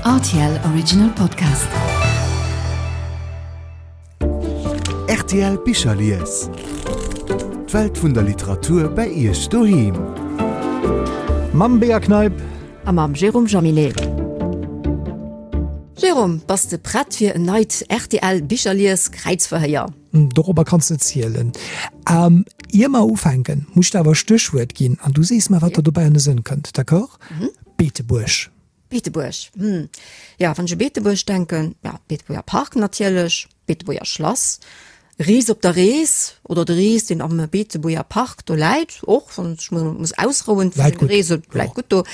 Rtl Original Podcast. Rtl Bicherlies. D'Welt vun der Literatur bei Iech doheem. Mam Bea Kneip. A mam Jérôme Jaminet. Jérôme, bass de prett fir en neit rtl Bicherlies Kräizverhéier? Dorobber kanns de zielen. Ier mer ufänken, muss ech der awer e Stéchwuert ginn an du sees mer, wat der dobäi an de Sënn kënnt, d'accord? Beetebuerg. Beetebuerg, hm, jo, wann ech u Beetebuerg denken, ja, Beetebuerger Park natierlech, Beetebuerger Schlass, Rees op der Rees oder de Rees, deen am Beetebuerger Park do läit, och wann ech mech muss ausrouen vun Läit den gutt, Reesen, läit jo. gutt do.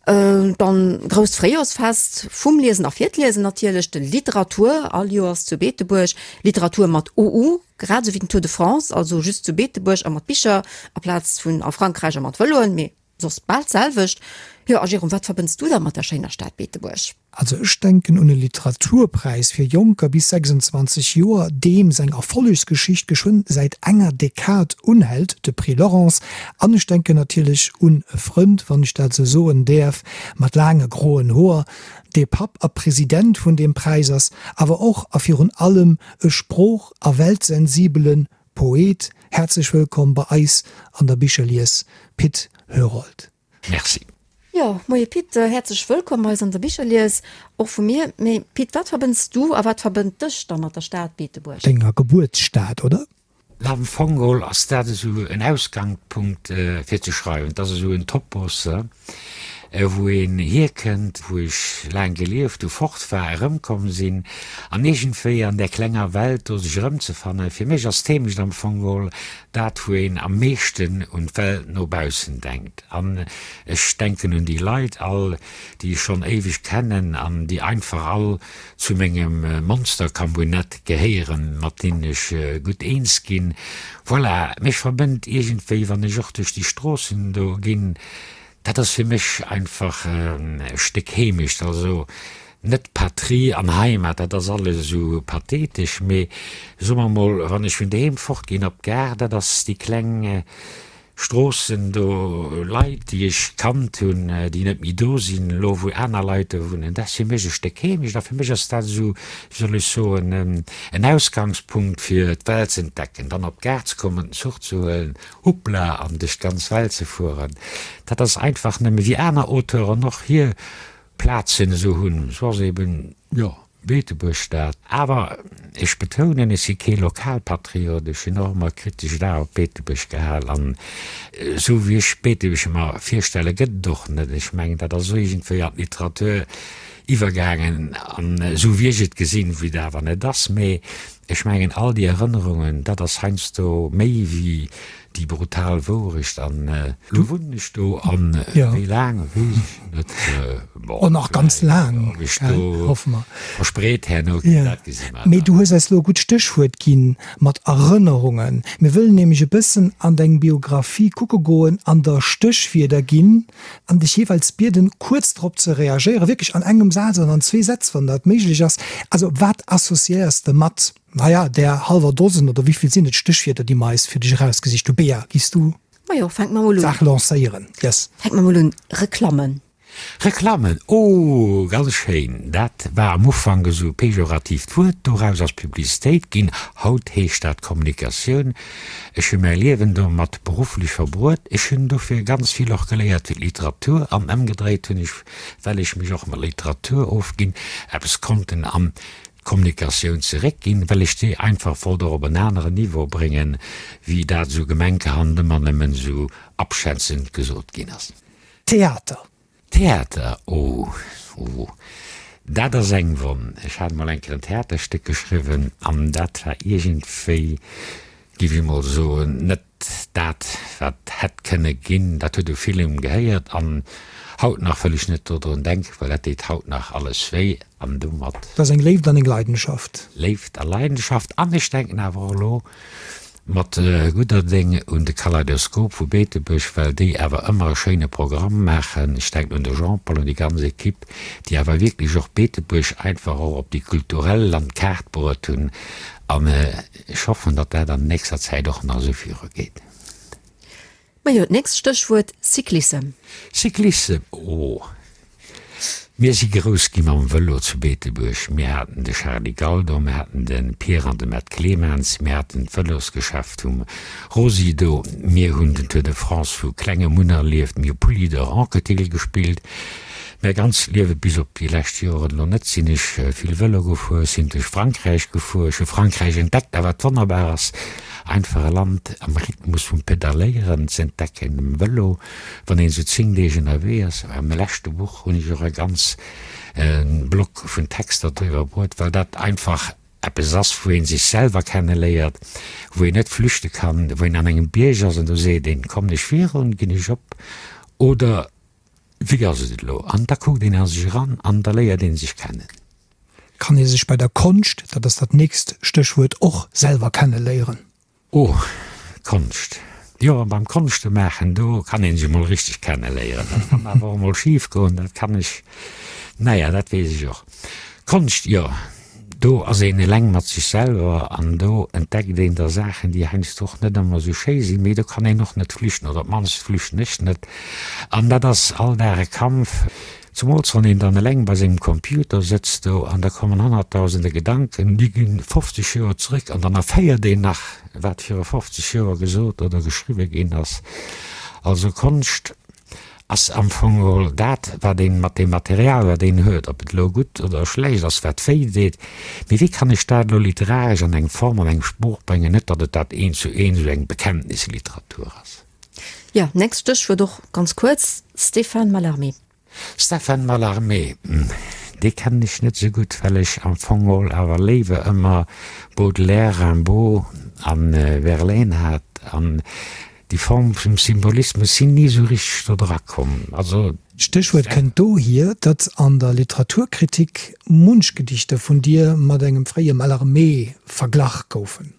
Dann grousst Fréijorsfest vum Liesen a fir d'Liesen natierlech, de Literatour all Joers zu Beetebuerg, Literatur mat OU, grad esou wéi den Tour de France, also just zu Beetebuerg a mat Bicher aplaz vun a Frankräich a mat Vëloen, mee soss bal d'selwecht. Jo, a Jérôme, wat verbënns du da mat der schéiner Stad Beetebuerg? Also ech denken un e Literaturpräis fir Jonker bis 26 Joer, deem seng Erfollegsgeschicht geschwënn säit enger Dekad unhält, de Prix Laurence. An ech denken natierlech un e Frënd, wann ech dat esou soen däerf, mat laange groen Hoer, dee Papp a President vun deem Präis ass, awer och a virun allem e sprooch a weltsensibele Poet. Häerzlech wëllkomm bei eis an der Bicherlies, Pit Herold. Merci. Jo, moie Pit, häerzlech wëllkomm bei eis an der Bicherlies, och vu mir. Mee Pit, wat verbënns du a wat verbënnt dech da mat der Stad Beetebuerg? Denger Gebuertsstad, oder? Am Fong geholl ass dat esou en Ausgangpunkt fir ze schreiwen. Et ass esou en Topos, wou een hierkënnt, wou ech laang gelieft hu, fort war, erëmkomm sinn an iergendwéi an där klenger Welt do sech erëmzefannen. Fir mech ass d'Heemecht am Fong geholl dat, wou een am meeschten un d'Welt no baussen denkt. An ech denken un déi Leit all, déi ech schonn éiweg kennen an déi einfach all zu mengem Monstercambunett gehéieren, mat deenen ech gutt eens ginn. Voilà, mech verbënnt iergendwéi, wann ech och duerch déi Stroossen do ginn, Dat ass fir mech einfach e Stéck Heemecht, also net Patrie an Heimat, dat ass alles esou pathetesch, mee soe mer mol, wann ech vun doheem fortginn op d'Gare, dat ass déi kleng Stroossen do, Leit, déi ech kannt hunn, déi net méi do sinn elo, wou aner Leit do wunnen, dat ass fir mech e Stéck Heemecht a fir mech ass dat esou, wéi soll ech soen, en Ausgangspunkt fir d'Welt z'entdecken, dann op d'Gare ze kommen, den Zuch ze huelen Hoppla, an duerch d'ganz Welt ze fueren, dat ass einfach nëmme, wéi aner Auteuren och hir Plazen esou hunn, esou ass eben, jo, Beetebuerg dat. Awer ech betounen, ech si kee Lokalpatriot, ech hunn och ëmmer kritesch d'A op Beetebuerg gehal an esou wéi ech Beetebuerg mer virstelle gëtt et och net. Ech mengen, dat ass esou iergendwéi an d'Literatur iwwergaangen an esou wéi ech et gesinn, wéi et awer net ass, mee Ech mengen, all déi Erënnerungen, dat ass heiansdo méi wéi déi brutal Wourecht. An elo wunnen ech do, an wéi laang, weess ech net. Bon, Oh, nach ganz laang, ob ech do hoffe mer. verspreet herno ginn, dat gesi mer Mee dann. du hues eis elo e gutt Stéchwuert ginn mat Erënnerungen. Mir wëllen nämlech e bëssen an deng Biographie kucke goen an der Stéchwierder ginn an dech jeeweils bieden, kuerz drop ze reagéieren, wierklech an engem Saz oder an zwee Sätz, wann dat méiglech ass. Also, wat associéiers de mat, naja, där hallwer Dosen oder wéi vill sinn et Stéchwierder, déi mer eis fir dech erausgesicht hu? Bea, giffs du Majo, fänke mer mol un. d'Saach lancéieren? Yes. Fänke mer mol un. Reklammen. Reklammen, oh, ganz schéin. Dat war am Ufank esou e pejoratiivt Wuert, doraus ass Publicitéit ginn, haut heescht dat Kommunikatioun. Ech hu mäi Liewen domat berufflech verbruet. Ech hunn dofir ganz vill och geléiert fir d'Literatur an ëmgedréit hunn ech, well ech mech och mat Literatur ofginn, eppes konnten an d'Kommunikatioun zeréckginn, well ech déi einfach wollt och op en aneren Niveau bréngen, wéi dat esou gemenkehand ëmmer nëmmen esou abschätzend gesot ginn ass. Theater. Theater, oh, oh, dat ass eng Wonn. Ech hat mol eng Kéier en Theaterstéck geschriwwen an dat war iergendwéi, géif ech mol soen, net dat, wat hätt kënne ginn. Dat huet u villem gehéiert an haut nach wëll ech net dodrun denken, well dat deet haut nach alles wéi an domat. Dat ass eng Léift an eng Leidenschaft. Léift a Leidenschaft an ech denken awer och elo Mat gudder Déng un de Kaleidoskop vu Beetebuerg, well déi awer ëmmer e schéine Programm maachen. Ech denken un de Jean-Paul, un déi ganz Equipe, déi awer wierklech och Beetebuerg einfach och op déi kulturell Landkaart bruet hunn. An ech hoffen, datt dat an nächster Zäit och nach esou virugeet. Majo, d'nächst Stéchwuert, Cyclissem. Cyclissem, oh! Mir si grouss gi mam Vëlo zu Beetebuerg. Mir haten de Charly Galdor, mir haten de Pierre an de Mett Clemens, mir haten d'Vëlosgeschäft vum Rosy do, mir hunn den Tour de France vu klengem un erlieft, mir hu Poulidor, Anquetil gespillt. Mäi ganzt Liewe bis op déi lescht Joren elo net sinn ech vill Vëlo gefuer, sinn duerch Frankräich gefuer, ech hu Frankräich entdeckt a wat wonnerbar ass, einfach e Land am Rhythmus vum Pedalléieren ze entdecken, um Vëlo, wann een esou 10 Deeg ënnerwee ass. Am leschte Buch hunn ech och e ganz Block vun Texter driwwer bruet, well dat einfach eppes ass, wou ee sech selwer kenneléiert, wou een net flüchte kann, wou een an engem Bierg ass an do seet een, kommen ech virun, ginn ech op oder Wéi ass et elo? An da kuckt een a sech eran an da léiert ee sech kennen. Kann ee sech bei der Konscht, dat ass dat nächst Stéchwuert, och selwer kenneléieren? Oh, Konscht. Jo, beim Konschte maachen, do kann ee sech emol richteg kenneléieren. Dat kann awer och emol schif goen, dat kann ech, naja, dat weess ech och. Konscht, jo. Do ass een eleng mat sech selwer an do entdeckt een da Saachen, déi heiansdo och net ëmmer esou schéi sinn, mee do kann een och net flüchten, oder op d'mannst flüchten ech net. An dat ass all Dag e Kampf, zumools wann een dann eleng bei sengem Computer sëtzt do an da kommen honnertdausende Gedanken, déi gi 50 Joer zrëck an dann erféiert een nach, wat viru 50 Joer gesot oder geschriwwe ginn ass. Also Konscht Ass am Fong geholl dat, wat een mat deem Material, wat een huet, ob et elo gutt oder schlecht ass, wat wéi deet, mee wéi kann ech dat elo literaresch an eng Form, an eng Sprooch bréngen, net datt et dat eent zu eent esou eng Bekenntnisliteratur ass. Jo, nächst Stéchwuert och ganz kuerz, Stéphane Mallarmé. Stéphane Mallarmé, dee kennen ech net esou gutt, well ech am Fong geholl awer léiwer ëmmer Baudelaire, Rimbaud a Verlaine hat an Déi Form vum Symbolismus sinn ni esou richteg do dra komm. Also. D'Stéchwuert kënnt dohier, datt an der Literaturkritik munch Gedichter vun dir mat engem fréie Mallarmé verglach goufen.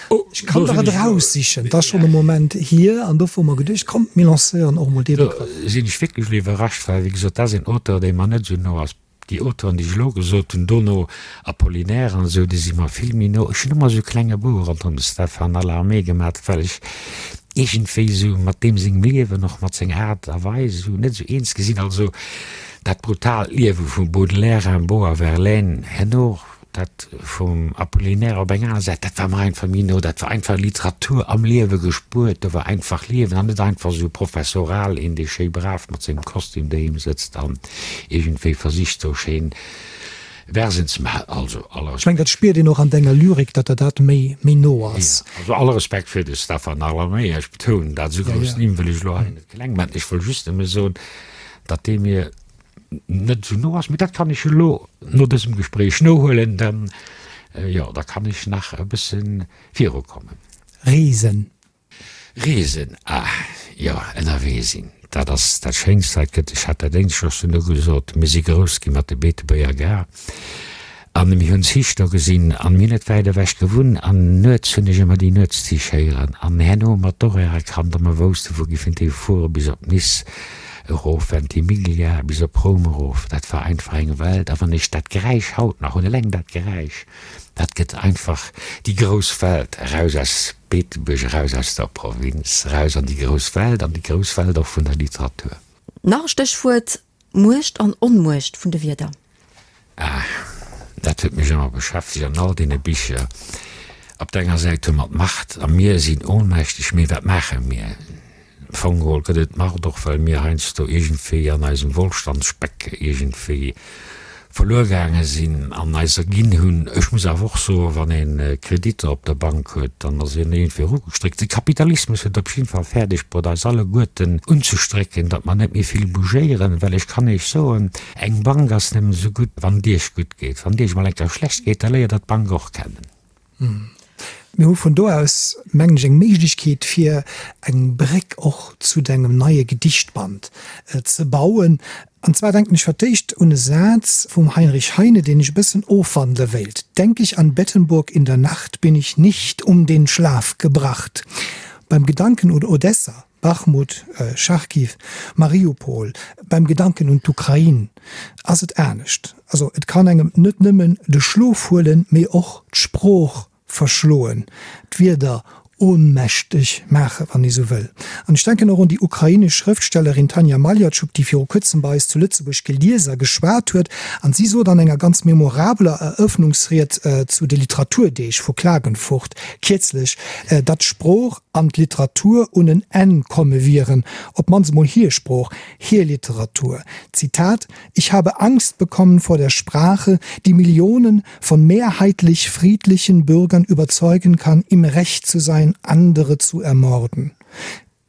Ech kann der et eraussichen, 't ass schonn e Moment hier, an dofir hu mer geduecht, komm, mir lancéieren och emol dee Begrëff. Do sinn ech wierklech elo iwwerrascht, well, wéi gesot, dat ass een Auteur, dee mer net esou no ass. Déi Auteuren, déi ech elo gesot hunn, dono Apollinaire an esou, déi si mer vill méi no. Ech hunn ëmmer esou e klenge Bou ronderëm de Stéphane Mallarmé gemat, well ech iergendwéi esou mat deem sengem Liewen, och mat senger Aart a Weis esou net esou eens gi sinn. Also dat brutaalt Liewe vum Baudelaire, Rimbaud a Verlaine, herno Dat vum Apollinaire op eng aner Säit, dat war mer einfach méi no. Dat war einfach Literatur am Liewe gespuert. Do war einfach Liewen an net einfach esou professoral een, dee schéi brav mat sengem Kostüm doheem sëtzt an iergendwéi versicht, do schéin Versen ze maachen. Also aller Ech mengen, dat spiert een och an denger Lyrik, datt der dat méi, méi no ass. Jo, also alle Respekt fir de Stéphane Mallarmé. Ech betounen dat, esou grouss Nimm wëll ech elo hei net kleng maachen. Ech wëll just nëmme soen, datt dee mir net esou no ass, mee dat kann ech elo no dësem Gespréich nohuelen, dann, jo, da kann ech nach e bësse virukommen. Reesen. Reesen, ah jo, ënnerwee sinn, dat ass dat Schéinst wat et gëtt. Ech hat dat éinescht och schonn ugesot, mir si grouss gi mat de Beetebuerger Gare an mir hunn Zich do gesinn an mir hunn net wäit ewech gewunnt an nuets hunn ech ëmmer déi Nuetszich héieren an herno hu mer d'Horaire erkannt a mer woussten, wou giffen déi fuere bis op Nice. Erof Ventimiglia bis op Roum erof, dat war einfach eng Welt. A wann ech dat Geräisch haut nach hunn, eleng dat Geräisch, dat gëtt einfach déi grouss Welt, eraus aus Beetebuerg, eraus aus der Provinz, eraus an déi grouss Welt, an déi grouss Welt och vun der Literatur. Nach e Stéchwuert, Muecht an Onmuecht vun de Wierder. Ah, dat huet mech ëmmer beschäftegt an all deene Bicher. Op der enger Säit hu mer d'Macht a mir sinn ohnmächteg, mee wat maache mir? Am Fong geholl gëtt et d'Macht och, well mir heiansdo iergendwéi an eisem Wohlstandsspeck iergendwéi verluer gaange sinn an eis erginn hunn. Ech muss awer och soen, wann ee Kreditter op der Bank huet, dann ass een iergendwéi erugestréckt. De Kapitalismus huet op jidde Fall fäerdeg bruet, eis alleguerten unzestrécken, datt mer net méi vill bougéieren, well ech kann Iech soen, Eng Bank ass nëmmen esou gutt, wann et Iech gutt geet. Wann et Iech emol eng Kéier schlecht geet, da léiert Der d'Bank och kennen. Mir hu vun do aus, mengen ech, eng Méiglechkeet, fir eng Bréck och zu dengem neie Gedichtband ze bauen. An zwar denken ech fir d'éischt un e Saz vum Heinrich Heine, deen ech e bëssen ofwandele wéilt, Denk ich an Bettenburg in der Nacht, bin ich nicht um den Schlaf gebracht. Beim Gedanken un Odessa Bachmut, Charkiw, Mariupol, beim Gedanken un d'Ukrain ass et anescht. Also et kann engem net nëmmen de Schlof huelen, mee och d'Sprooch verschloen, d'Wierder. Ohnmächteg maachen, wann ee sou wëll. An ech denken och un déi ukrainesch Schrëftstellerin Tanja Maljatschuk, déi viru kuerzem bei eis zu Lëtzebuerg gelies a geschwat huet. An si sot an enger ganz memorabeler Erëffnungsried zu de Literaturdeeg vu Klagenfurt kierzlech, datt d'Sprooch an d'Literatur un en Enn komme wieren, op d'mannst emol hir Sprooch, hir Literatur. Zitat, Ich habe Angst bekommen vor der Sprache, die Millionen von mehrheitlich friedlichen Bürgern überzeugen kann, im Recht zu sein, andere zu ermorden.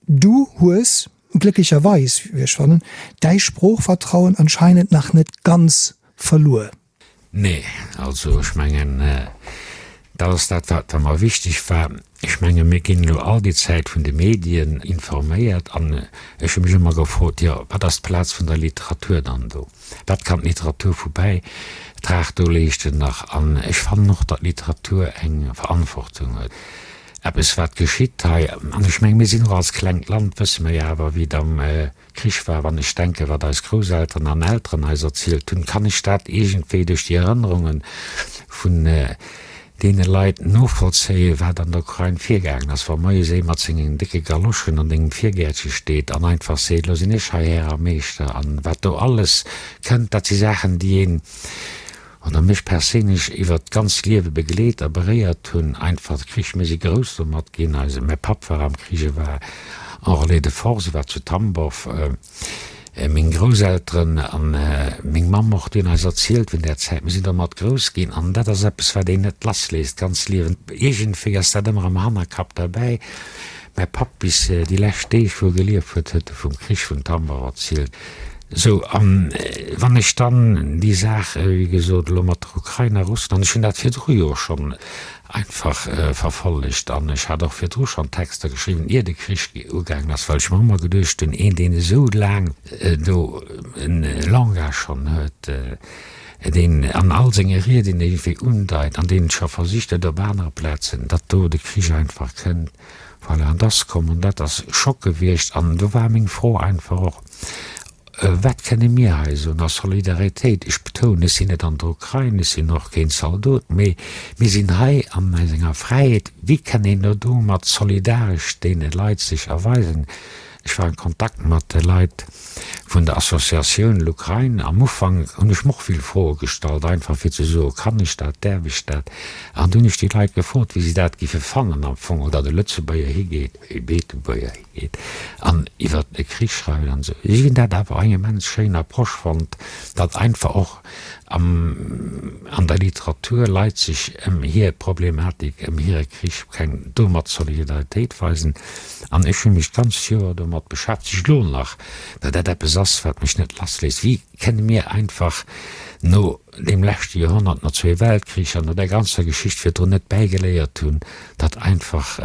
Du hues, glécklecherweis, wéi ech fannen, däi Sproochvertrauen anscheinend nach net ganz verluer. Nee, also ech mengen, dat ass dat, wat mer wichteg war. Ech menge mir ginn elo all déi Zäit vun de Medien informéiert an ech hu mech ëmmer gefrot, jo, wat ass d'Plaz vun der Literatur dann do? Wat kann d'Literatur vu Bäitrag do leeschten nach? An ech fannen och, datt d'Literatur eng Verantwortung huet, eppes wat geschitt hei. An ech menge mir sinn och als klengt Land, wësse mer jo awer, wéi et am Krich war. Wann ech denken, wat eis Grousselteren an Elteren eis erzielt hunn, kann ech dat iergendwéi duerch déi Erënnerunge vun deene Leit novollzéien, wat an der Ukrain virgaangen ass. Wa moies ee mat sengen décke Galoschen an dengem Virgäertche steet an einfach seet, Elo sinn ech hei Här a Meeschter an wat do alles kënnt, dat si Saachen, déi een oder mech perséinlech iwwert d'ganzt Liewe begleet a beréiert hunn. Einfach de Krich, mir si grouss domat ginn, eise, mäi Papp war am Krich, e war en Relais de force, e war zu Tambow, meng Grousselteren a meng Mamm och, déi hunn eis erzielt vun där Zäit, mir sinn domat grouss ginn an dat ass eppes, wat een net lassléisst d'ganzt Liewen. Iergendwéi ass dat ëmmer am Hannerkapp derbäi. Mäi Papp, bis déi lescht Deeg, wou e gelieft huet, huet e vum Krich vun Tambow erzielt. Sou, a wann ech dann déi Saach, wéi gesot, elo mat der Ukrain a Russland, ech hunn dat virdru jo schonn einfach verfollegt an ech hat och virdru schonn Texter geschriwwen, ier de Krich ugaangen ass, well ech mer ëmmer geduecht hunn, een, deen esou laang do e Langage schonn huet, deen an all senge Rieden iergendwéi undeit an deen scho versicht huet op anere Plazen, datt do de Krich einfach kënnt. Voilà, an et ass komm an dat ass Schock gewiescht. An do war meng Fro einfach och, Wat kënne mir hei soen a Solidaritéit? Ech betounen, ech sinn net an der Ukrain, ech sinn och keen Zaldot, mee mir sinn hei an eisenger Fräiheet. Wéi kann een elo domat solidaresch deene Leit sech erweisen? Ech war an Kontakt mat de Leit vun der Associatioun Lukrain. Am Ufank hunn ech mer och vill Froe gestallt, einfach fir ze soen, kann ech dat, däerf ech dat? An du hunn ech déi Leit gefrot, wéi si dat giffe fannen am Fong, datt e Lëtzebuerger higeet, e Beetebuerger higeet an iwwer e Krich schreift an esou. Si hunn dat awer eng immens schéin Approche fonnt, datt einfach och am an der Literatur Leit sech ëm hir Problematik, ëm hire Krich keng domat Solidaritéit weisen. An ech hu mech d'ganzt Joer domat beschäftegt, elo nach, well dat eppes ass, wat mech net lassléisst, Wéi kënne mir einfach no deem leschte Joerhonnert, no zwee Weltkricher, no där ganzer Geschicht virdrun net bäigeléiert hunn, datt einfach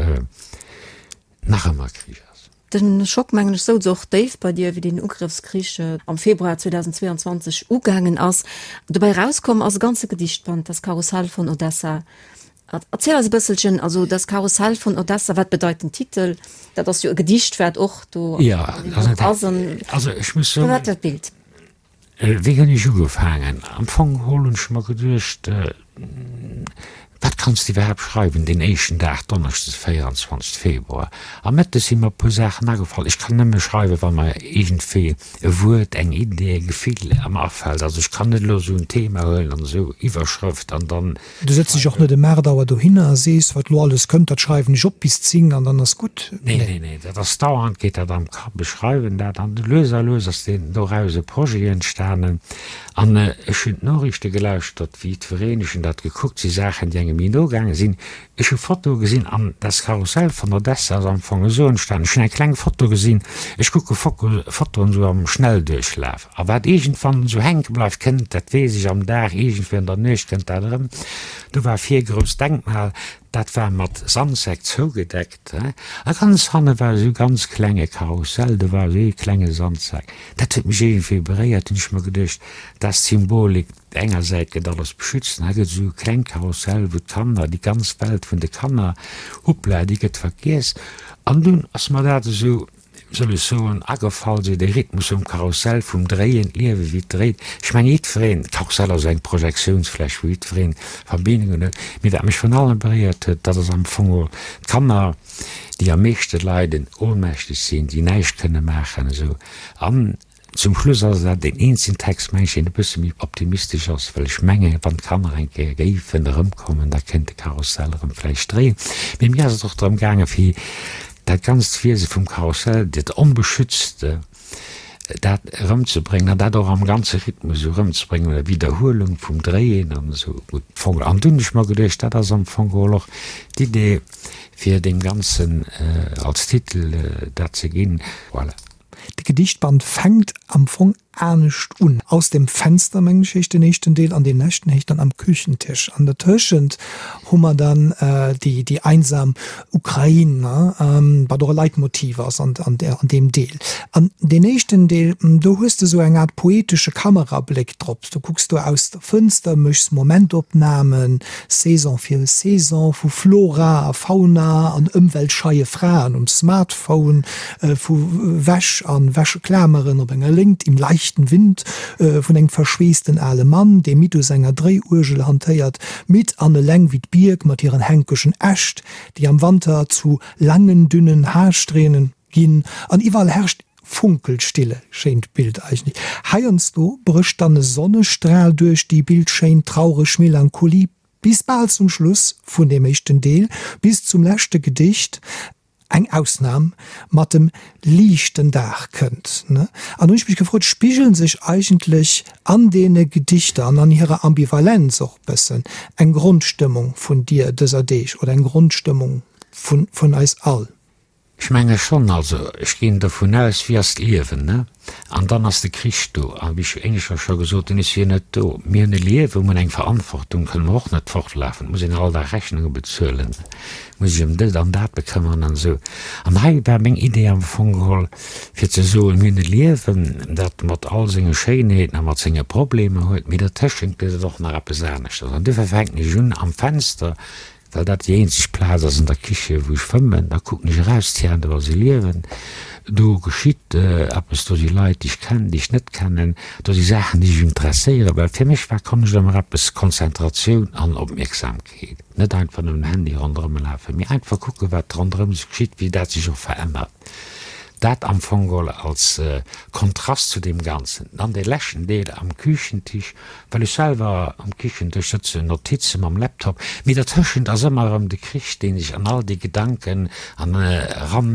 nach ëmmer Krich ass? De Schock, mengen ech, souz och déif bei dir, wéi deen Ugrëffskrich am Februar 2022 ugaangen ass. Dobäi erauskomm ass e ganze Gedichtband, Das Karussell von Odessa. Erziel eis e bësselchen, also Das Karussell von Odessa, wat bedeit den Titel? Dat ass jo e Gedicht, wat och do ass. Also ech muss soen, Firwat dat Bild? Wéi hunn ech ugefaangen? Am Fong geholl hunn ech mer geduecht, Wat kanns de iwwerhaapt schreiwen deen éischten Dag, Donneschdes 24 Februar? A mëttes si mer e puer Saachen agefall. Ech kann nëmme schreiwen, wa mer iergendwéi e Wuert, eng Idee, e Gefill am afält. Also ech kann net elo esou en Thema huelen an esou Iwwerschrëft an dann. Du sëtz dech och net ëm 8 Auer dohinner a sees, wat lo alles kënnt, dat schreiwen ech op bis 10 an dann ass gutt. Nee, nee, nee, dat ass dauernd geet dat am Kapp. Ech schreiwen dat an lues a lues ass deen doraus e Projet entstanen. An ech hunn d'Noriichte gelauschtert, wéi jiddwereen, ech hunn dat gekuckt, si Saachen, déi engem méi no gaange sinn. Ech hu Fotoe gesinn an das Karussell von Odessa ass am Fong esou entstanen, ech hunn eng kleng Foto gesinn, ech kucke Fotoen esou am Schnellduerchlaf a wat iergendwann esou hänke bleift, kënnt, dat weess ech, am Dag, iergendwéi an der Nuecht kënnt dat erëm. Do war vir e grousst Denkmal, dat war mat Sandsäck zougedeckt a ganz hanne war esou e ganz klenge Karussell, do war esou ee klenge Sandsak. Dat huet mech iergendwéi beréiert, hunn ech mer geduecht, dat ass d'Symbolik. Op enger Säit gëtt alles beschützt an hei gëtt esou e klengt Karussell, wou d'Kanner, déi ganz Welt vun de Kanner, hoppla, déi gëtt vergiess. An dunn ass mer dat esou. Soll ech soen, agefall, sou de Rhythmus vum Karussell, vum Dréien, d'Liewe wéi et dréit. Ech mengen jiddwereen, d'Karussell ass eng Projektiounsfläch, wou jiddwereen Verbindungen huet. Mee wat mech vrun allem beréiert huet, dat ass am Fong och d'Kanner, déi am meeschte leiden, ohnmächteg sinn, déi näischt kënne maachen esou. An Zum Schluss ass dat deen eenzegen Text, meng ech, deen e bësse méi optimistesch ass, well ech mengen, wann d'Kanner eng Kéier géifen erëmkommen, da kéint de Karussell erëm vläicht dréien. Mee mir ass et och drëm gaangen, fir dat ganzt Wiese vum Karussell, dat Onbeschützte, dat erëmzebréngen an dat och am ganze Rhythmus esou erëmzebréngen, oder Widderhuelung vum Dréien an esou. Gutt, am Fong. An dunn hunn ech mer geduecht, dat ass am Fong geholl och d'Idee, fir deem Ganzen als Titel dat ze ginn. Voilà. De Gedichtband fänkt am Fong anescht un. Aus dem Fenster, mengen ech, heescht den éischten Deel an dee leschten heescht dann Am Küchentisch. An dertëschent hu mer dann déi, déi einsam Ukrain, wat och e Leitmotiv ass an, an deem Deel. An deen éischten Deel, do hues de sou eng Aart poetesche Kamerabléck drop. Du kucks do aus der Fënster, méchs Momentopnamen, Saison fir Saison, vu Flora a Fauna an ëmweltscheie Fraen um Smartphone, vu Wäsch a Wäscheklameren op enger Léngt im leichten Wind, vun engem verschweessten ale Mann, dee midd u senger Dréiuergel hantéiert, midd an eleng wéi d'Bierk mat hiren hänkegen Äscht, déi am Wanter zu langen, dünnen Haarsträhnen ginn, an iwwerall herrscht Funkelstille. Schéint Bild eigentlech. Heiansdo brécht dann e Sonnestral duerch déi bildschéin traureg Melancholie, bis bal zum Schluss vun deem éischten Deel, bis zum leschte Gedicht. Eng Ausnam mat dem liichten Dag kënnt. An hunn ech mech gefrot, spigelen sech eigentlech an deene Gedichter an an hirer Ambivalenz och bëssen eng Grondstëmmung vun dir dëser Deeg oder eng Grondstëmmung vun eis all? Ech menge schonn. Also ech ginn dovun aus, wéi ass d'Liewen, ne? An dann ass de Krich do. A wéi ech éineschter scho gesot hunn, ech wier net do. Mir hunn e Liewen, mir hunn eng Verantwortung, kënne mer och net fortlafen. Et muss een all Dag Rechnunge bezuelen, muss sech ëm dëst an dat bekëmmeren an esou. An hei war meng Idee am Fong geholl, fir ze soen, mir hunn e Liewen, dat mat all senge Schéinheeten a mat senge Problemer huet, mee dertëschent gëtt et och nach eppes aneschters. An duerfir fänken ech un am Fenster Well dat déi eenzeg Plaz ass an der Kiche wou ech fëmmen, da kucken ech eraus, tiens, do ass e Liewen, do geschitt eppes, do si Leit déi ech kennen, déi ech net kennen, do si Saachen déi mech interesséieren, well fir mech war Konscht ëmmer eppes Konzentratioun an Opmierksamkeet, net einfach nëmmen Handy ronderëm lafen, mee einfach kucken wat ronderëm sech geschitt, wéi dat sech och verännert. Dat am Fong geholl als Kontrast zu deem Ganzen. Dann dee leschten Deel am Küchentisch, well ech selwer am Kichendësch sëtzen, Notize mam Laptop, mee dertëschent ass ëmmer erëm de Krich, dee sech an all déi Gedanken an eran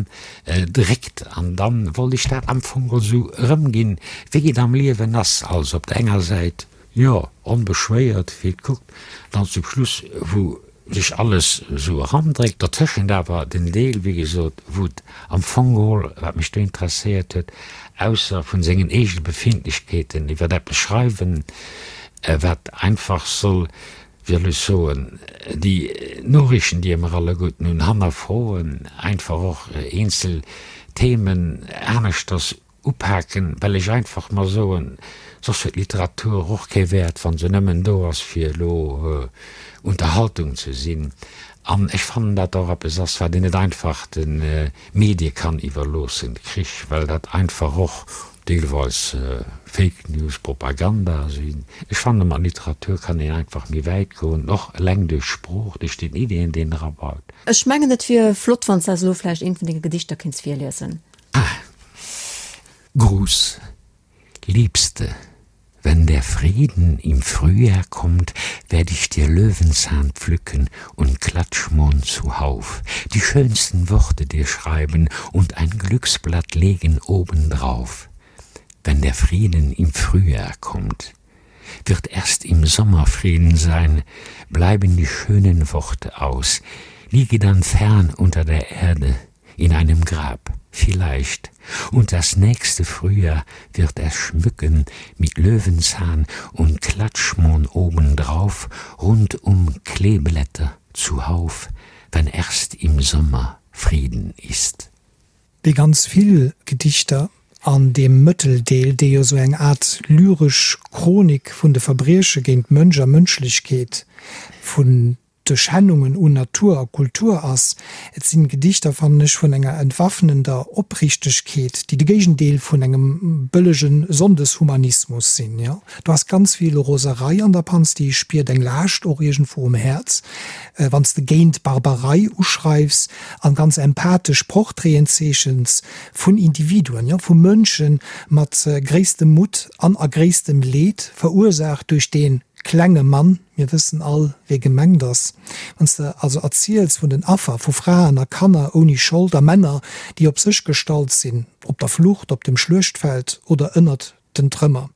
dréckt. An dann wollt ech dat am Fong geholl esou erëmginn, wéi et am Liewen ass. Also op der enger Säit, jo, onbeschwéiert, wéi et kuckt, dann zum Schluss, wou sech alles esou erandréckt, dertëschent awer den Deel, wéi gesot, wou et am Fong geholl, wat mech do interesséiert huet, ausser vun sengen eegene Befindlechkeeten iwwer eppes schreiwen, wat einfach soll, wéi soll ech soen, déi Noriichten, déi mer alleguerten hunn, hannerfroen, einfach och eenzel Themen aneschters Upaken, well ech einfach mer soen, soss huet Literatur och kee Wäert, wa se nëmmen do ass, fir elo Unterhaltung ze sinn. An ech fannen, dat och eppes ass, wat een net einfach de Medie kann iwwerloossen, Krich, well dat einfach och deelweis Fake News, Propaganda sinn. Ech fanne mat Literatur kann een einfach méi wäit goen, och eleng duerch d'Sprooch, duerch den Ideeën, déi een erabaut. Ech mengen, et wier flott, wann s de eis elo vläicht eent vun denge Gedichter kéints virliesen. Ah. Gruß, Liebste, wenn der Frieden im Frühjahr kommt, werd ich dir Löwenzahn pflücken und Klatschmohn zuhauf, die schönsten Worte dir schreiben und ein Glücksblatt legen obendrauf. Wenn der Frieden im Frühjahr kommt, wird erst im Sommer Frieden sein, bleiben die schönen Worte aus, liege dann fern unter der Erde, in einem Grab, vielleicht, und das nächste Frühjahr wird er schmücken mit Löwenzahn und Klatschmohn obendrauf, rundum Kleeblätter zuhauf, wenn erst im Sommer Frieden ist. Wéi ganz vill Gedichter an deem Mëtteldeel, dee jo sou eng Aart lyresch Chronik vun de Verbrieche géint Mënsch a Mënschlechkeet vun. de Schännungen un Natur a Kultur ass. Et sinn Gedichter, fannen ech, vun enger entwaffnender Opriichtegkeet, déi de Géigendeel vun engem bëllege Sonndeshumanismus sinn. Jo, do ass ganz vill Roserei an der Panz, déi ech spiert, eng Laascht och iergendwou um Häerz, wann s de géint Barbarei uschreifs an ganz empathesch Portraiten zeechens vun Individuen, jo, vu Mënsche mat gréisstem Mutt an a gréisstem Leed, verursaacht duerch dee klenge Mann, Mir wëssen all, wie gemengt ass. Wann s de also erziels vun den Affer, vu Fraen a Kanner ouni Schold a Männer, déi op sech gestallt sinn, op der Flucht, op dem Schluechtfeld oder ënnert den Trëmmer.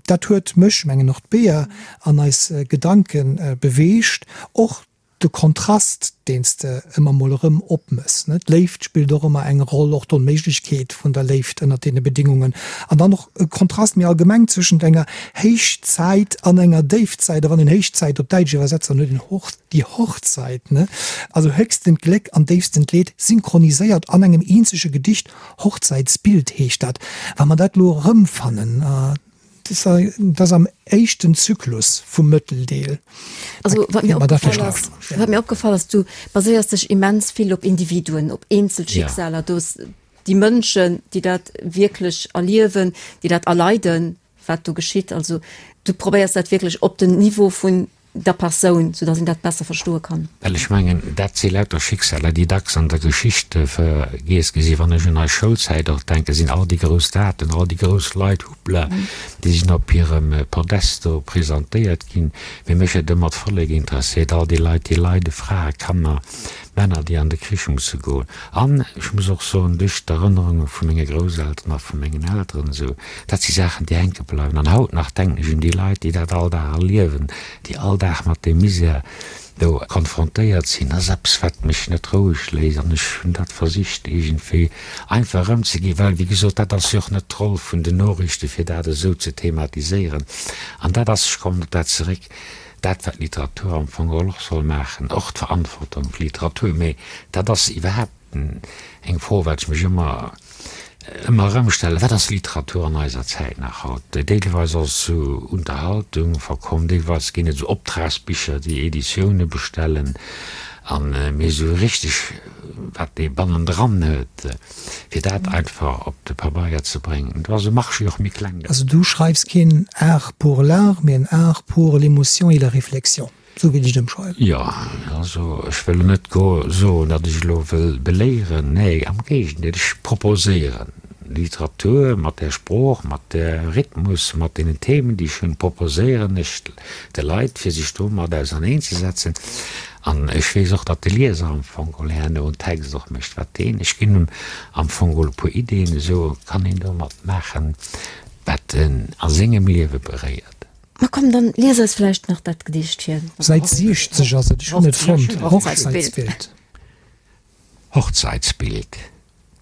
Dat huet mech, mengen och d'Bea, an eis Gedanke beweegt. Och de Kontrast, deen s de ëmmer mol erëm opmëss, ne? D'Léift spillt och ëmmer eng Roll, och d'Onméiglechkeet vun der Léift ënnert deene Bedingungen. An dann och e Kontrast méi allgemeng zwëschent enger Héichzäit an enger Déifzäit. A wann een Héichzäit op Däitsch iwwersetzt, dann huet een Hoch, die Hochzeit, ne? Also höchstent Gléck an déifstent Leed synchroniséiert an engem eenzege Gedicht. Hochzeitsbild heescht dat. Wa mer dat elo erëmfannen, Dat ass am éischten Zyklus vum Mëtteldeel. Also wat mir opgefall ass, wat mir opgefall ass, du baséiers dech immens vill op Individuen, op eenzel Schicksaler, do déi Mënschen, déi dat wierklech erliewen, déi dat erleiden, wat do geschitt. Also du probéiers dat wierklech op den Niveau vun der Persoun, sou dass een dat besser verstoe kann. Well ech mengen, dat si lauter Schicksaler, déi dacks an der Geschicht vergiess gi sinn. Wann ech un eis Schoulzäit och denken, sinn all déi grouss Daten, all déi grouss Leit, hoppla, déi sinn op hirem Podest do presentéiert ginn. Mee mech huet ëmmer d'Vollek interesséiert, all déi Leit, déi leiden, Frae, Kanner, Männer, déi an de Krich musse goen. An ech muss och soen, duerch d'Erënnerunge vu menge Grousselteren a vu mengen Elteren esou, dat si Saachen, déi hänke bleiwen. An haut nach denken ech un déi Leit, déi dat all Dag erliewen, déi all Dag mat deem Misär do konfrontéiert sinn. Dat ass eppes, wat mech net roueg léisst. An ech hunn dat versicht iergendwéi einfach erëmzeginn, well, wéi gesot, dat ass jo och net d'Roll vun den Noriichte fir dat esou ze thematiséieren. An dat ass, ech kommen op dat zeréck, Dat wat Literatur am Fong geholl och soll maachen, och d'Verantwortung fir Literatur, mee dat ass iwwerhaapt eng Fro wat ech mech ëmmer ëmmer erëm stellen, wat ass Literatur an eiser Zäit nach haut? Deelweis ass et zu Unterhaltung verkomm, deelweis ginn et esou Optragsbicher déi Editioune bestellen, an mee esou richteg wat ee bannendran huet, fir dat einfach op de Pabeier ze bréngen, do ass e Marché och méi kleng ginn. Also du schreifs keen Art pour l'art, mee en Art pour l'émotion et la réflexion, esou wéilt ech et ëmschreiwen. Jo, also ech wëll elo net soen, datt ech elo wëll beléieren, nee, am Géigendeel, ech proposéieren Literatur mat där Sprooch, mat där Rhythmus, mat deenen Themen, déi ech hunn, proposéieren ech de Leit, fir sech domat auserneenzesetzen. An ech weess och, datt de Lieser am Fong geholl herno en Text och mécht, wat deen, ech ginn em am Fong geholl e puer Ideeën, esou kann een domat maachen, wat en a sengem Liewe beréiert. Ma komm, dann lies eis vläicht nach dat Gedicht vir. Säit 60 ass et, ech hunn et fonnt, Hochzeitsbild. Hochzeitsbild.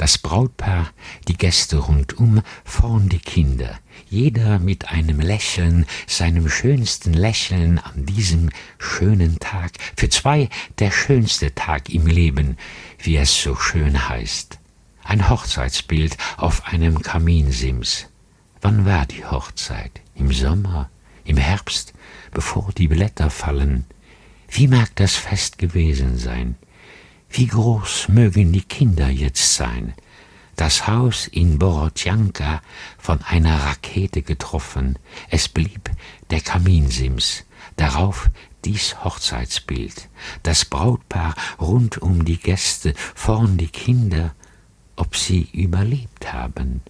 Das Brautpaar, die Gäste rundum, vorn die Kinder, jeder mit einem Lächeln, seinem schönsten Lächeln an diesem schönen Tag, für zwei der schönste Tag im Leben, wie es so schön heißt. Ein Hochzeitsbild auf einem Kaminsims. Wann war die Hochzeit? Im Sommer, im Herbst, bevor die Blätter fallen? Wie mag das Fest gewesen sein? Wie groß mögen die Kinder jetzt sein? Das Haus in Borodjanka von einer Rakete getroffen, es blieb der Kaminsims, darauf dies Hochzeitsbild, das Brautpaar rund um die Gäste, vorn die Kinder, ob sie überlebt haben,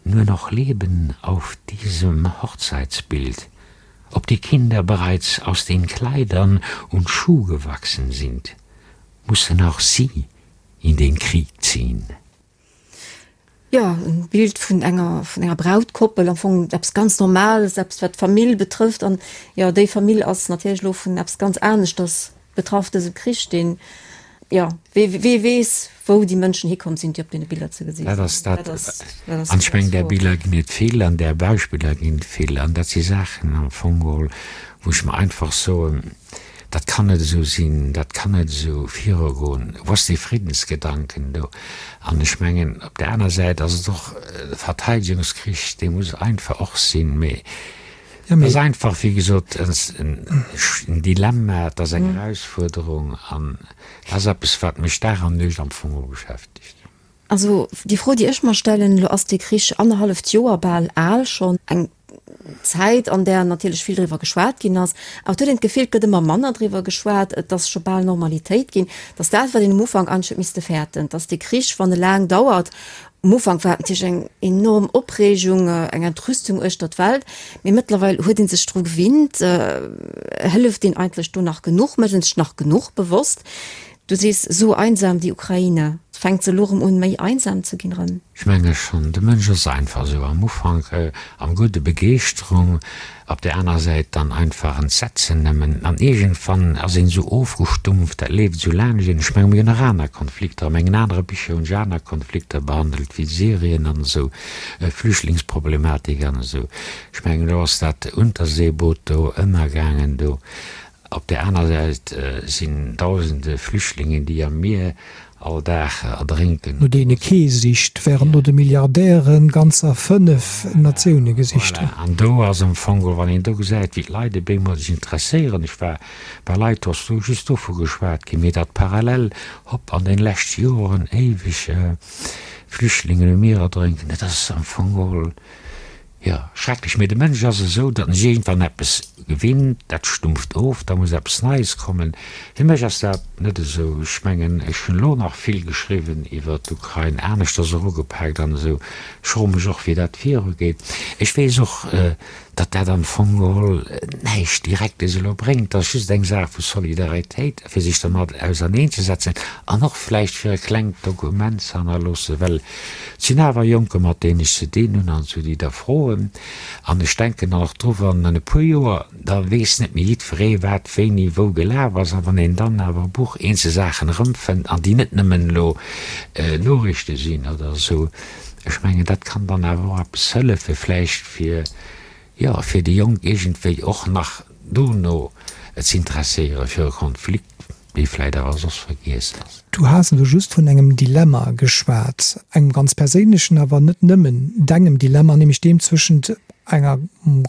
nur noch Leben auf diesem Hochzeitsbild, ob die Kinder bereits aus den Kleidern und Schuh gewachsen sind, mussten auch sie in den Krieg ziehen. Jo, e Bild vun enger, vun enger Brautkoppel, am Fong eppes ganz Normales, eppes wat d'Famill betrëfft. An jo, déi Famill ass natierlech elo vun eppes ganz aneschters betraff, dësem Krich, deen, jo, wee, wee weess, wou déi Mënschen hikomm sinn, déi op deene Biller ze gesi sinn. Dat ass dat. An ech mengen, där Biller ginn et vill an där Beispiller ginn et vill. An dat si Saachen am Fong geholl, wou ech mer einfach soen, Dat kann net esou sinn, dat kann net esou virugoen. Wou ass dee Friddensgedanken do? An ech mengen, op där aner Säit ass et och e Verteidegungskrich, dee muss einfach och sinn. Mee. Et ass einfach, wéi gesot, en Dilemma, et ass eng Erausfuerderung an et ass eppes, wat mech Dag an Nuecht am Fong och beschäftegt. Also déi Fro, déi ech mer stellen, elo ass dee Krich annerhalleft Joer bal al schonn, eng Zäit, an där natierlech vill driwwer geschwat ginn ass, awer et huet een d'Gefill, et gëtt ëmmer manner driwwer geschwat, et ass scho bal Normalitéit ginn, datt dat, wat een um Ufank eigentlech huet misste fäerten, datt dee Krich, wann e laang dauert, um Ufank war et natierlech eng enorm Opreegung, eng Entrüstung uechter d'Welt, mee mëttlerweil huet ee sech dru gewinnt, hëlleft een eigentlech do nach genuch, mécht een sech nach genuch bewosst, Du sees, so einsam die Ukraine. Fänkt se elo rëm un méi einsam ze ginn rëm? Ech menge schonn, de Mënsch ass einfach esou, am Ufank am Gudde Begeeschterung, op där aner Säit dann einfach Entsetzen nëmmen, an iergendwann ass een esou ofgestumpft, dat leeft esou laanscht een. Ech menge mir hunn nach aner Konflikter, a mengen anere Bicher hunn ech aner Konflikter behandelt, wéi Syrien an esou, Flüchtlingsproblematik an esou. Ech mengen elo ass dat Unterseeboot do ënnergaangen do. Op där aner Säit sinn dausende Flüchtlingen, déi am Mier all Dag erdrénken. No deene kee sicht, wärend no de Milliardäre ganzer 5 Natioune gesicht hunn. Voilà, an do ass am Fong geholl, wann een do gesäit, wéi d'Leit op eemol sech interesséieren, ech war bei Leit, do ass do just dovu geschwat ginn, mee datt parallel, hopp, an den leschte Joren éiweg Flüchtlingen um Mier erdrénken, dat ass am Fong geholl, Jo, schrecklech, mee de Mënsch ass esou, datt en sech iergendwann eppes gewinnt, dat stumpft of, da muss eppes Neies kommen. Fir mech ass dat net esou. Ech mengen, ech hunn elo nach vill geschriwwen iwwer d'Ukrain, aneschters erugepaakt an esou. Ech froe mech och, wéi dat virugeet. Ech weess och, datt dat am Fong geholl näischt Direktes elo bréngt. Dat ass just eng Saach vu Solidaritéit, fir sech dermat auserneenzesetzen an och vläicht fir e klengt Dokument ze hannerloossen, well Et sinn awer Jonker, mat deenen ech ze dinn hunn an esou, déi da froen. An ech denken dann och dru, wann an e puer Joer, da weess net méi jiddweree, wat wéini wou gelaf ass. A wann een dann awer e Buch eenzel Saachen erëmfënnt an déi net nëmmen elo Noriichte sinn oder esou, ech mengen, dat kann dann awer och eppes hëllefe vläicht fir, jo, fir déi Jonk iergendwéi och nach dono z'interesséiere fir e Konflikt. Dee vläit awer soss vergiess ass. Du has elo just vun engem Dilemma geschwat, engem ganz perséinlechen, awer net nëmmen dengem Dilemma, nämlech deem zwëschent enger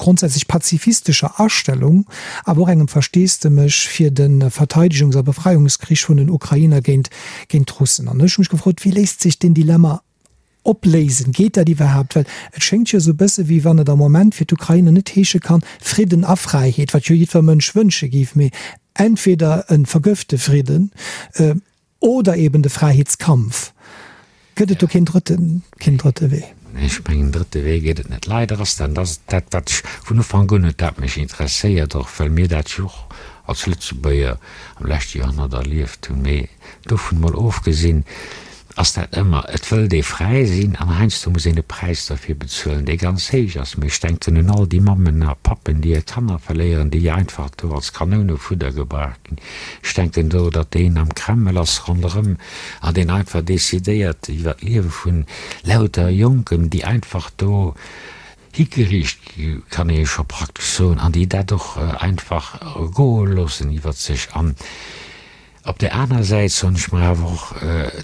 grondsätzlech pazifistescher Astellung, awer och engem Versteesdemech fir de Verteidegungs a Befreiungskrich vun den Ukrainer géint géint d'Russen. An ech hu mech gefrot, wéi léist sech deen Dilemma opléisen? Geet dat iwwerhaapt? Well et schéngt jo esou e bësse wéi wann et am Moment fir d'Ukrainer net heesche kann, Fridden a Fräiheet, wat jo jiddwer Mënsch wënsche géif, mee entweder e vergëfte Fridden oder eben de Fräiheetskampf. Gëtt et do keen drëtte, keen drëtte Wee? Nee, ech mengen, en drëtte Wee gëtt et net. Leider ass dat, dat ass dat, wat ech vun Ufank un huet dat mech interesséiert, och well mir dat jo och als Lëtzebuerger am leschte Joerhonnert erlieft hunn. Mee dovun emol ofgesinn, ass dat ëmmer, et wëllt ee fräi sinn an heiansdo muss een e Präis derfir bezuelen, dee ganz héich ass. Mee ech denken un all déi Mammen a Pappen, déi hir Kanner verléieren, déi einfach do als Kanounefudder gebraucht ginn. Ech denken do, datt deen am Kreml ass ronderëm an deen einfach decidéiert iwwer d'Liewe vun lauter Jonken, déi einfach do higeriicht gi, kann ee scho praktesch soen, an déi dat och einfach goe loossen iwwer sech. An Op där aner Säit soen ech mer awer och,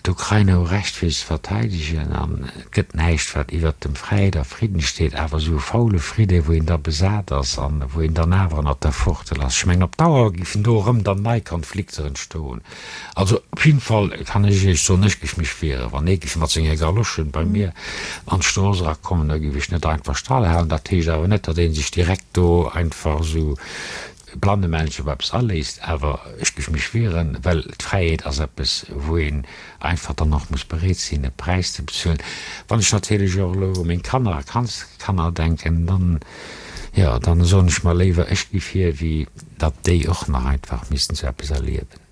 d'Ukrainer hu Recht fir sech ze verteidegen an et gëtt näischt wat iwwert dem Fräiheet a Fridden steet, awer esou e faule Fridde wou een da besat ass an wou een dann awer ënnert der Fuertel ass, ech mengen op Dauer géifen do erëm dann nei Konflikter entstoen. Also op jidden Fall kann ech Iech soen, ech géif mech wieren, wann ee géif mat senge Galoschen bei mir an d'Strooss erakommen, da géif ech net einfach stallhalen. Dat heescht awer net, datt ee sech direkt do einfach esou Blannemännchen op eppes aléisst, awer ech géif mech wieren, well d'Fräiheet ass eppes, wou een einfach dann och muss bereet sinn, e Präis ze bezuelen. Wann ech natierlech och elo u meng Kanner a Kandskanner denken, dann, jo, dann soen ech mer léiwer, ech gi vir, wéi datt déi och nach einfach missten esou eppes erliewen.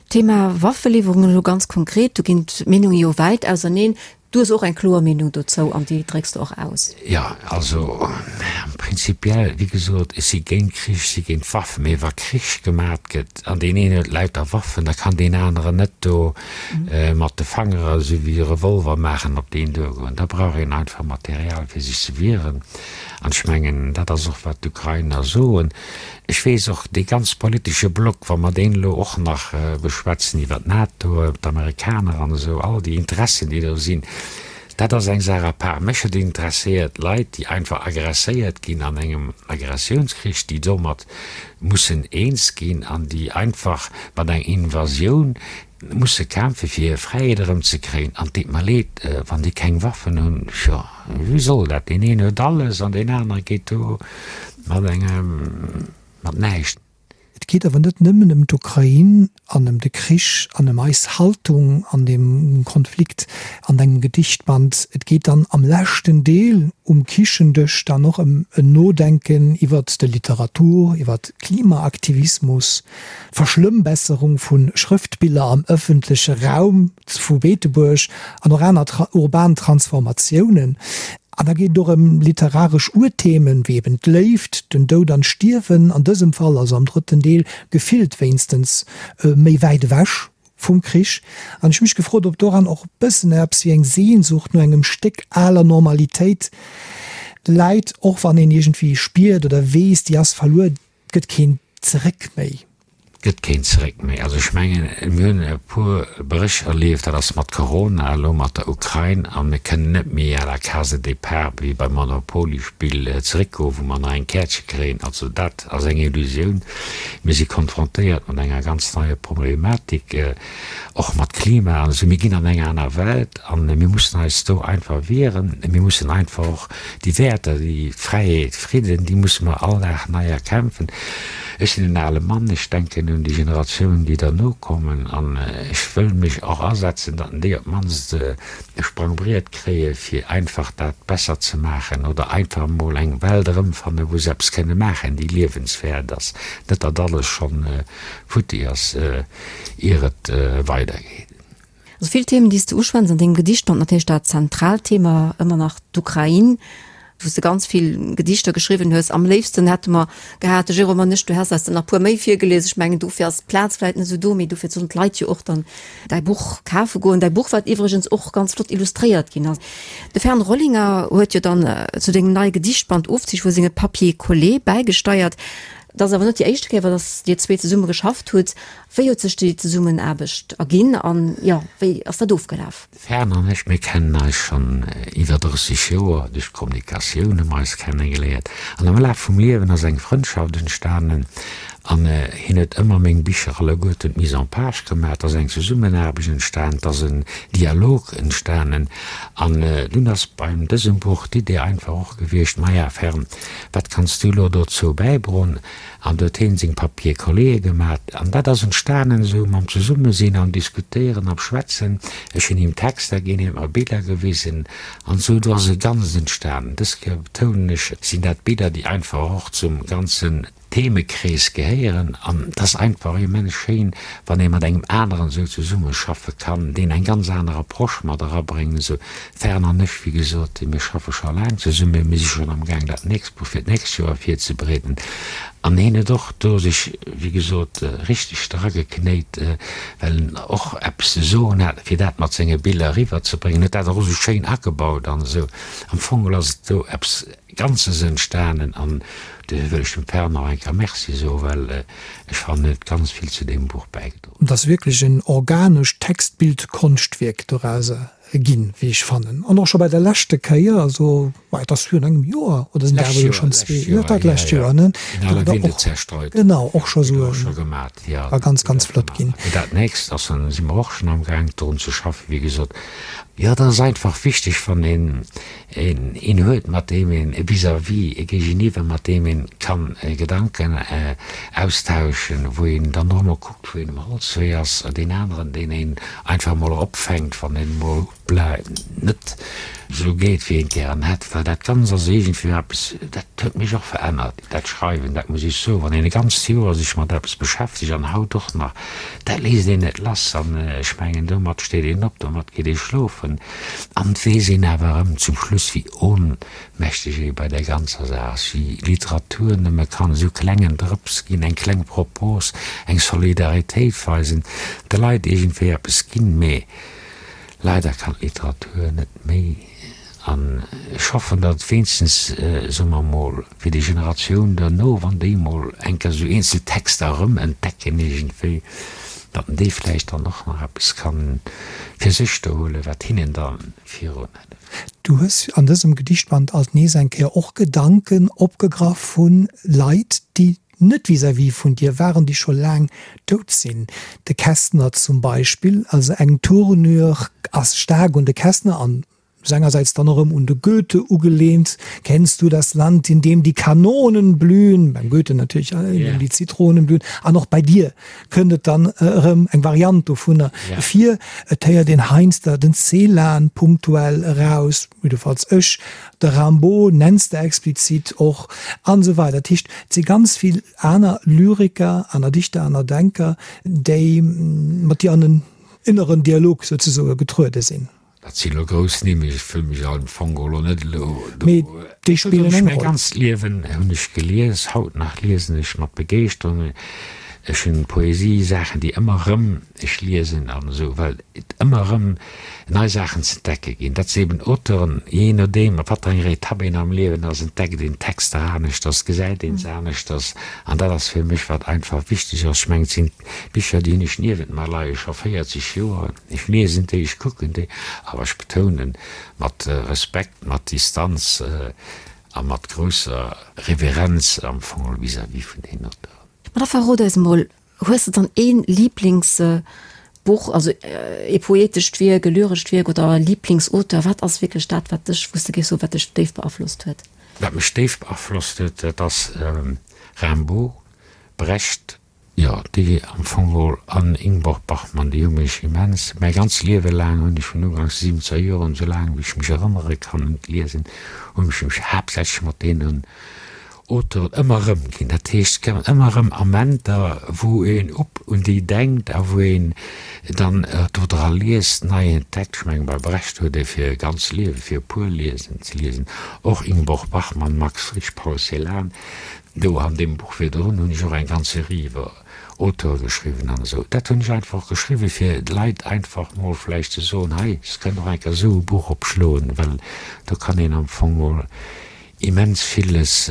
Thema Waffeliwwerungen elo ganz konkret, do ginn d'Meenunge jo wäit auserneen. Du hues och eng kloer Meenung dozou an déi drécks de och aus. Jo, also prinzipiell, wéi gesot, ech si géint Krich, ech si géint Waffen. Mee wa Krich gemat gëtt an deen een huet lauter Waffen, da kann deen aneren net do mat de Fangere esou wéi e Revolver maachen op deen duergoen. Da brauch een einfach Material fir sech ze wieren. An ech mengen, dat ass och wat d'Ukrainer soen. Ech weess och, dee ganz politesche Block, wa mer deen elo och nach beschwätzen iwwer d'NATO, d'Amerikaner an esou, all déi Interessen, déi do sinn. Dat ass eng Saach à part. Mech huet interesséiert Leit, déi einfach agresséiert ginn an engem Agressiounskrich, déi domat mussen eens ginn an déi einfach mat enger Invasioun musse kämpfe fir hir Fräiheet erëmzekréien. An et deet mer leed, wann déi keng Waffen hunn, jo, wéi soll dat? Deen een huet alles an deen anere geet do mat engem, mat näischt. Et geet awer net nëmmen ëm d'Ukrain an ëm de Krich an ëm eis Haltung an deem Konflikt an dengem Gedichtband. Et geet dann am leschten Deel um Kichendësch dann och ëm en Nodenken iwwert de Literatur, iwwert Klimaaktivismus, d'Verschlëmmbesserung vu Schrëftbiller am ëffentleche Raum vu Beetebuerg an och aner urban Transformatiounen. An da geet et och ëm literaresch Urthemen, wéi eben d'Léift, den Doud an d'Stierwen, an dësem Fall, also am drëtten Deel, gefillt wéinstens méi wäit ewech vum Krich. An ech hu mech gefrot, ob doran och e bëssen eppes wéi eng Sehnsucht no engem Stéck aler Normalitéit läit, och wann een iergendwéi spiert oder weess, déi ass verluer, 't gëtt keen Zeréck méi. 't gëtt keen Zeréck méi. Also ech mengen, mir hunn e puer Bréch erlieft, dat ass mat Corona, elo mat der Ukrain, a mir kënnen net méi à la case de départ wéi beim Monopoly-Spill zeréckgoen, wou mer nach eng Käertche kréien. Also dat ass eng Illusioun. Mir si konfrontéiert mat enger ganz neier Problematik, och mat Klima an esou. Mir ginn an eng aner Welt a mir mussen eis do einfach wieren. Mir mussen einfach och Déi Wäerter, déi Fräiheet, Fridden, déi musse mer all Dag nei erkämpfen. Ech sinn en ale Mann, ech denken un déi Generatiounen, déi derno kommen, an ech wëll mech och asetzen, datt déi op d'mannst e Sprangbriet kréie fir einfach dat besser ze maachen oder einfach emol eng Welt erëmfannen, wou se eppes kënne maachen, déi liewenswäert ass, net datt alles schonn futti ass, ier et weidergeet. Also vill Themen, déi s de uschwätz an dengem Gedichtband, natierlech dat zentraalt Thema ëmmer nach d'Ukrain, wou s de ganz vill Gedichter geschriwwen hues. Am léifsten hätte mer gehat, de Jérôme an ech, du häss eis der nach e puer méi virgelies. Ech mengen, dofir ass d'Plaz vläicht net esou do, mee dofir sollen d'Leit jo och dann däi Buch kafe goen. Däi Buch, wat iwwregens och ganz flott illustréiert ginn ass. De Fern Rollinger huet jo dann zu dengem neie Gedichtband Ofzich vu senge Papiers collés bäigesteiert. Dat ass awer net déi éischte Kéier, datt Dir zwee zesumme geschafft hutt. Wéi huet sech déi Zesummenaarbecht erginn an, jo, wéi ass dat ofgelaf? De Fern an ech, mir kennen eis schonn iwwer 30 Joer. Duerch d'Kommunikatioun hu mer eis kennegeléiert an am Laf vum Liewen ass eng Frëndschaft entstanen an hien huet ëmmer meng Bicher alleguerten d'Mise en page gemaach. Et ass eng Zesummenaarbecht entstanen, et ass en Dialog entstanen an dunn ass beim dësem Buch d'Idee einfach och gewiescht, Maja Fern, wat kanns du elo dozou bäidroen? An do huet heen seng Papier-colléë gemat. An dat ass entstanen esou mam Zesummesinn an Diskutéieren am Schwätzen. Ech hunn him Texter ginn, hien huet mer Biller gewisen an esou. Do ass e Ganzt entstanen. Dës Kéier betounen ech, sinn dat Biller, déi einfach och zum ganzen Themekrees gehéieren. An et ass einfach immens schéin, wann ee mat engem aneren esou zesummeschaffe kann, deen eng ganz aner Approche mat erabréngt. Esou Fern an ech, wéi gesot, mir schaffe scho laang zesummen, mir si schonn am Gaang dat nächst Buch fir d'nächst Joer virzebereeden. An hien huet och do sech, wéi gesot, richteg drageknéit, well en och eppes ze soen hat, fir dat mat senge Biller eriwwerzebréngen, huet dat och esou schéin agebaut an esou. Am Fong geholl ass et do eppes Ganzes entstanen an dofir wëll ech dem Fern nach eng Kéier Merci soen, well ech fannen, en huet ganz vill zu deem Buch bäigedroen. Et ass wierklech en organescht Text-Bild-Konschtwierk dorauser ginn, wéi ech fannen. An och scho bei der leschte Kéier, also ma et ass virun engem Joer, oder sinn dat awer elo schonn zwee, jo, dat lescht Joer, ne? In alle Winde zerstreut. Genau, och scho esou e war ganz, ganz flott ginn. Dat nächst ass, dann si mer och schonn amgaang drun ze schaffen, wéi gesot. Jo, dat ass einfach wichteg, wann een een huet, mat deem een e Vis-à-vis, e Géigeniwwer, mat deem een kann Gedanken austauschen, wou een dann och emol kuckt, wou een um Holzwee ass, deen aneren, deen een einfach emol opfänkt, wann een emol net esou geet, wéi een et gären hätt. Well dat Ganzt ass iergendwéi eppes, dat huet mech och verännert, dat Schreiwen, dat muss ech soen. Wann een e ganzt Joer sech mat eppes beschäftegt, an haut och nach, dat léisst een net lass. An ech mengen, domat steet een op, domat geet ee schlofen. An et weess een awer erëm zum Schluss, wéi ohnmächteg ee bei där ganzer Saach ass, wéi Literatur nëmme kann esou klengen Drëps ginn, eng kleng Propos, eng Solidaritéit weisen, de Leit iergendwéi eppes ginn. Mee leider kann d'Literatur net méi. An ech hoffen, datt et wéinstens, soe mer emol, fir déi Generatioun derno, wann déi emol eng Kéier esou eenzel Texter erëm entdecken iergendwéi. Datt en déi vläicht dann och nach eppes kann fir sech do huelen, wat hinnen da virun hëlleft. Du hues an dësem Gedichtband alt nees eng Kéier och Gedanken opgegraff vu Leit, déi net vis-à-vis vun dir waren, déi scho laang dout sinn. De Kästner zum Beispill, also eng Tournure ass staark un de Kästner an sengersäits dann erëm un de Goethe ugelehnt, Kennst du das Land, in dem die Kanonen blühen? Beim Goethe natierlech, in dem die Zitronen blühen. An och bei dir kënnt et dann erëm eng Variant dovunner vir. Et héiert een heiansdo den Celan punktuell eraus, jiddefalls ech, de Rimbaud nenns de explizit och, an esou weider. Dat heescht, et si ganz vill aner Lyriker, aner Dichter, aner Denker, déi mat dir an en inneren Dialog souzesoe getruede sinn. Dat sinn elo grouss Nimm, ech wëll mech am Fong elo net elo do. Mee déi spillen eng Roll. Mäi ganzt Liewen hunn ech gelies, haut nach liesen ech mat Begeeschterung. Ech hunn Poesie, Saachen déi ëmmer erëm ech liesen an esou, well et ëmmer erëm nei Saachen ze entdecke ginn. Dat si eben Auteuren, jee nodeem op wat fir enger Etapp een am Liewen ass, entdeckt een Texter aneschters, gesäit een se aneschters an dat ass fir mech wat einfach wichteg ass. Ech mengen, et sinn Bicher déi hunn ech niewent mer leie scho 40 Joer. Ech liesen déi, ech kucken déi, awer ech betounen, mat Respekt, mat Distanz a mat grousser Reverenz am Fong vis-à-vis vun deenen Auteuren. Ma da verrot eis emol, hues de dann ee Liblingsbuch, also ee poetescht Wierk, e lyrescht Wierk oder e Liblingsauteur? Wat ass wierklech dat, wat dech, wou s de géifs soen, wat dech déif beaflosst huet? Wat mech déif beaflosst huet, dat ass Rimbaud, Brecht, Jo, déi am Fong geholl an Ingeborg Bachmann, déi hu mech immens, mäi ganzt Liewe laang hunn ech vun uganks de siwwenzeger Joren, esou laang wéi ech mech erënnere kann un d'Liesen, hunn ech mech haaptsächlech mat deenen Auteuren ëmmer erëmginn. Dat heescht, et kommen ëmmer erëm Amenter, wou een op un déi denkt a wou een dann do dra liest, nei entdeckt. Ech mengen, bei Brecht huet ee fir e ganzt Liewe fir e puer Liesen ze liesen, och Ingeborg Bachmann, Max Frisch, Paul Celan, Do an deem Buch virdrun hunn ech och eng ganz Serie iwwer Auteure geschriwwen an esou. Dat hunn ech einfach geschriwwen, fir d'Leit einfach mol vläicht ze soen, hei, se kënnen och eng Kéier esou e Buch opschloen, well do kann een am Fong mol immens villes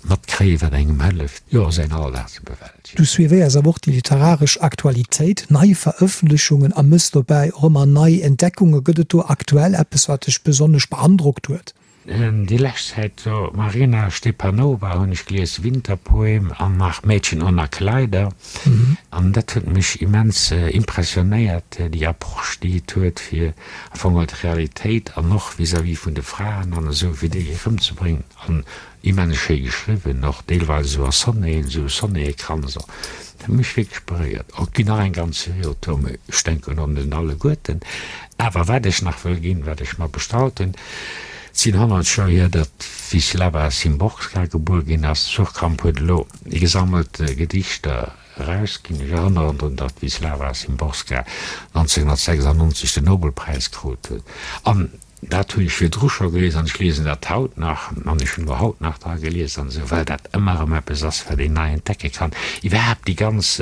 matkréien, wat engem hëlleft, jo, säin Alldag ze bewältegen. Du suivéiers awer och déi literaresch Aktualitéit, nei Verëffentlechungen a mëss dobäi och ëmmer nei Entdeckunge. Gëtt et do aktuell eppes, wat dech besonnesch beandrockt huet? Déi lescht Zäit do Marina Stepanova hunn ech gelies, Winterpoem an nach Mädchen ohne Kleider an dat huet mech immens impressionéiert, déi Approche déi et huet fir am Fong geholl d'Realitéit an och vis-à-vis vun de Fraen an esou fir déi erëmzebréngen an Immens schéi geschriwwen, och deelweis esou a Sonneten, esou Sonnettekranz och. Dat huet mech wierklech beréiert. Och ginn nach eng ganz Serie Auteuren, mee ech denken un den alleguerten. Awer wat ech nach wëll ginn, wat ech mer bestallt hunn, et sinn 100 Joer hier, datt d'Wislawa Szymborska gebuer ginn ass. Suhrkamp huet elo gesammelt Gedichter erausginn. Ech erënneren drun, datt d'Wislawa Szymborska 1996 den Nobelpräis krut huet. An Dat hunn ech virdru scho gelies an ech liesen dat haut nach an ech hunn elo haut nach dra gelies an esou, well dat ëmmer erëm eppes ass, wat een nei entdecke kann. Iwwerhaapt déi ganz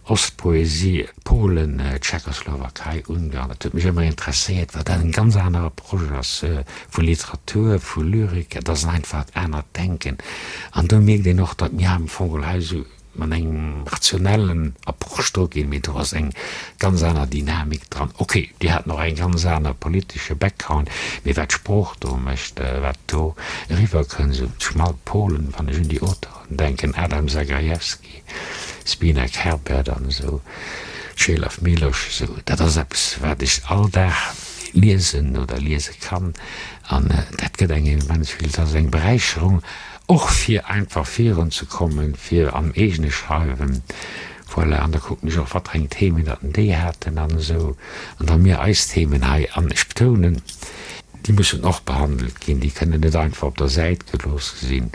Ostpoesie, Polen, Tschechoslowakei, Ungarn, dat huet mech ëmmer interesséiert, well dat en ganz anere Approche ass vu Literatur, vu Lyrik. Et ass en einfacht anert Denken an do mierkt een och, datt mir am Fong hei esou, mat engem rationellen Approche dru ginn, mee do ass eng ganz aner Dynamik dran. Ok, déi haten och eng ganz aner politesche Background, mee wat d'Sprooch do mécht, wat do eriwwer kënnt, esou schmal Polen, wann ech un déi Auteuren denken, Adam Zagajewski, Zbynek Herbert an esou, Czelaw Milosz, esou, dat ass eppes, wat ech all Dag liesen oder liese kann an dat gëtt engem immens vill, dat ass eng Beräicherung. Och fir einfach virun ze kommen, fir am eegene Schreiwen, voilà, an da kucken ech och, wat fir eng Themen datt déi haten an esou, an da mir eis Themen hei, an ech betounen, déi mussen och behandelt ginn, déi kënnen net einfach op der Säit gelooss sinn.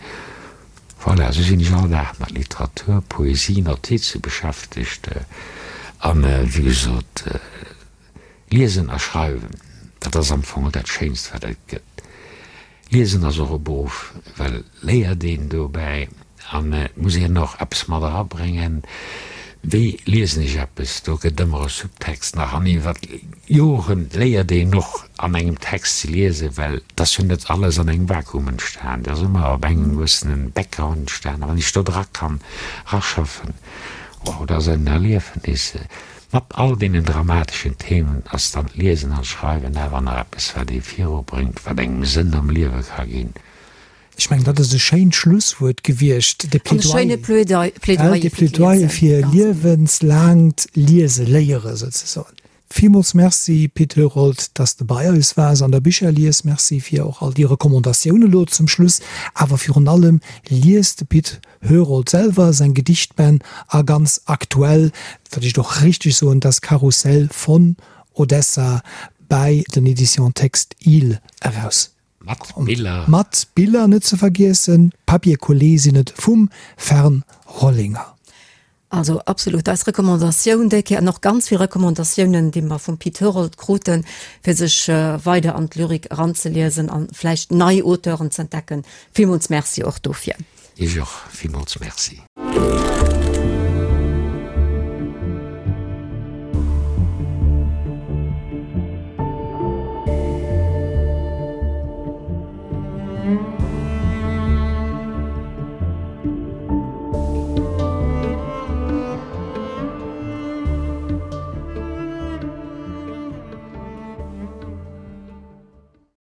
Voilà, esou sinn ech all Dag mat Literatur, Poesie, Notize beschäftegt an, wéi gesot, Liesen a Schreiwen, dat ass am Fong dat Schéinst, wat et gëtt. Liesen ass och e Beruff, well léiert een dobäi an et muss een och eppes mat erabréngen. Wéi liesen ech eppes? Do gëtt ëmmer e Subtext nach an iwwer Joren léiert een och an engem Text ze liesen, well et ass jo net alles an engem Vakuum entstan, et ass ëmmer op engem gewëssene Background entstan a wann ech do dra kann raschaffen, wow, dat ass en Erliefnis. Mat all deenen dramateschen Themen ass dann d'Liesen an d'Schreiwen awer nach eppes, wat ee virubréngt, wat engem Sënn am Liewe ka ginn. Ech mengen, dat ass e schéint Schlusswuert gewiescht, de Plädoyer, de Plädoyer fir liewenslaangt Liese léiere souzesoen. Villmools Merci, Pit Herold, dass de bei eis waars an der Bicherlies. Merci fir och all déi Recommandatioune lo zum Schluss. Awer virun allem, liest de Pit Herold selwer seng Gedichtbänn a ganz aktuell, wat ech och richteg soen, Das Karussell von Odessa bei den Editions Text-Ile eraus. Mat Biller. Mat Biller net ze vergiessen. Papier collé sinn et vum Fern Rollinger. Also absolut eis Recommandatioun déi Kéier an och ganz vill Recommandatiounen, déi mer vum Pit Herold kruten, fir sech weider an d'Lyrik eranzeliesen an vläicht nei Auteuren z'entdecken. Villmools Merci och dofir. Iech och villmools Merci.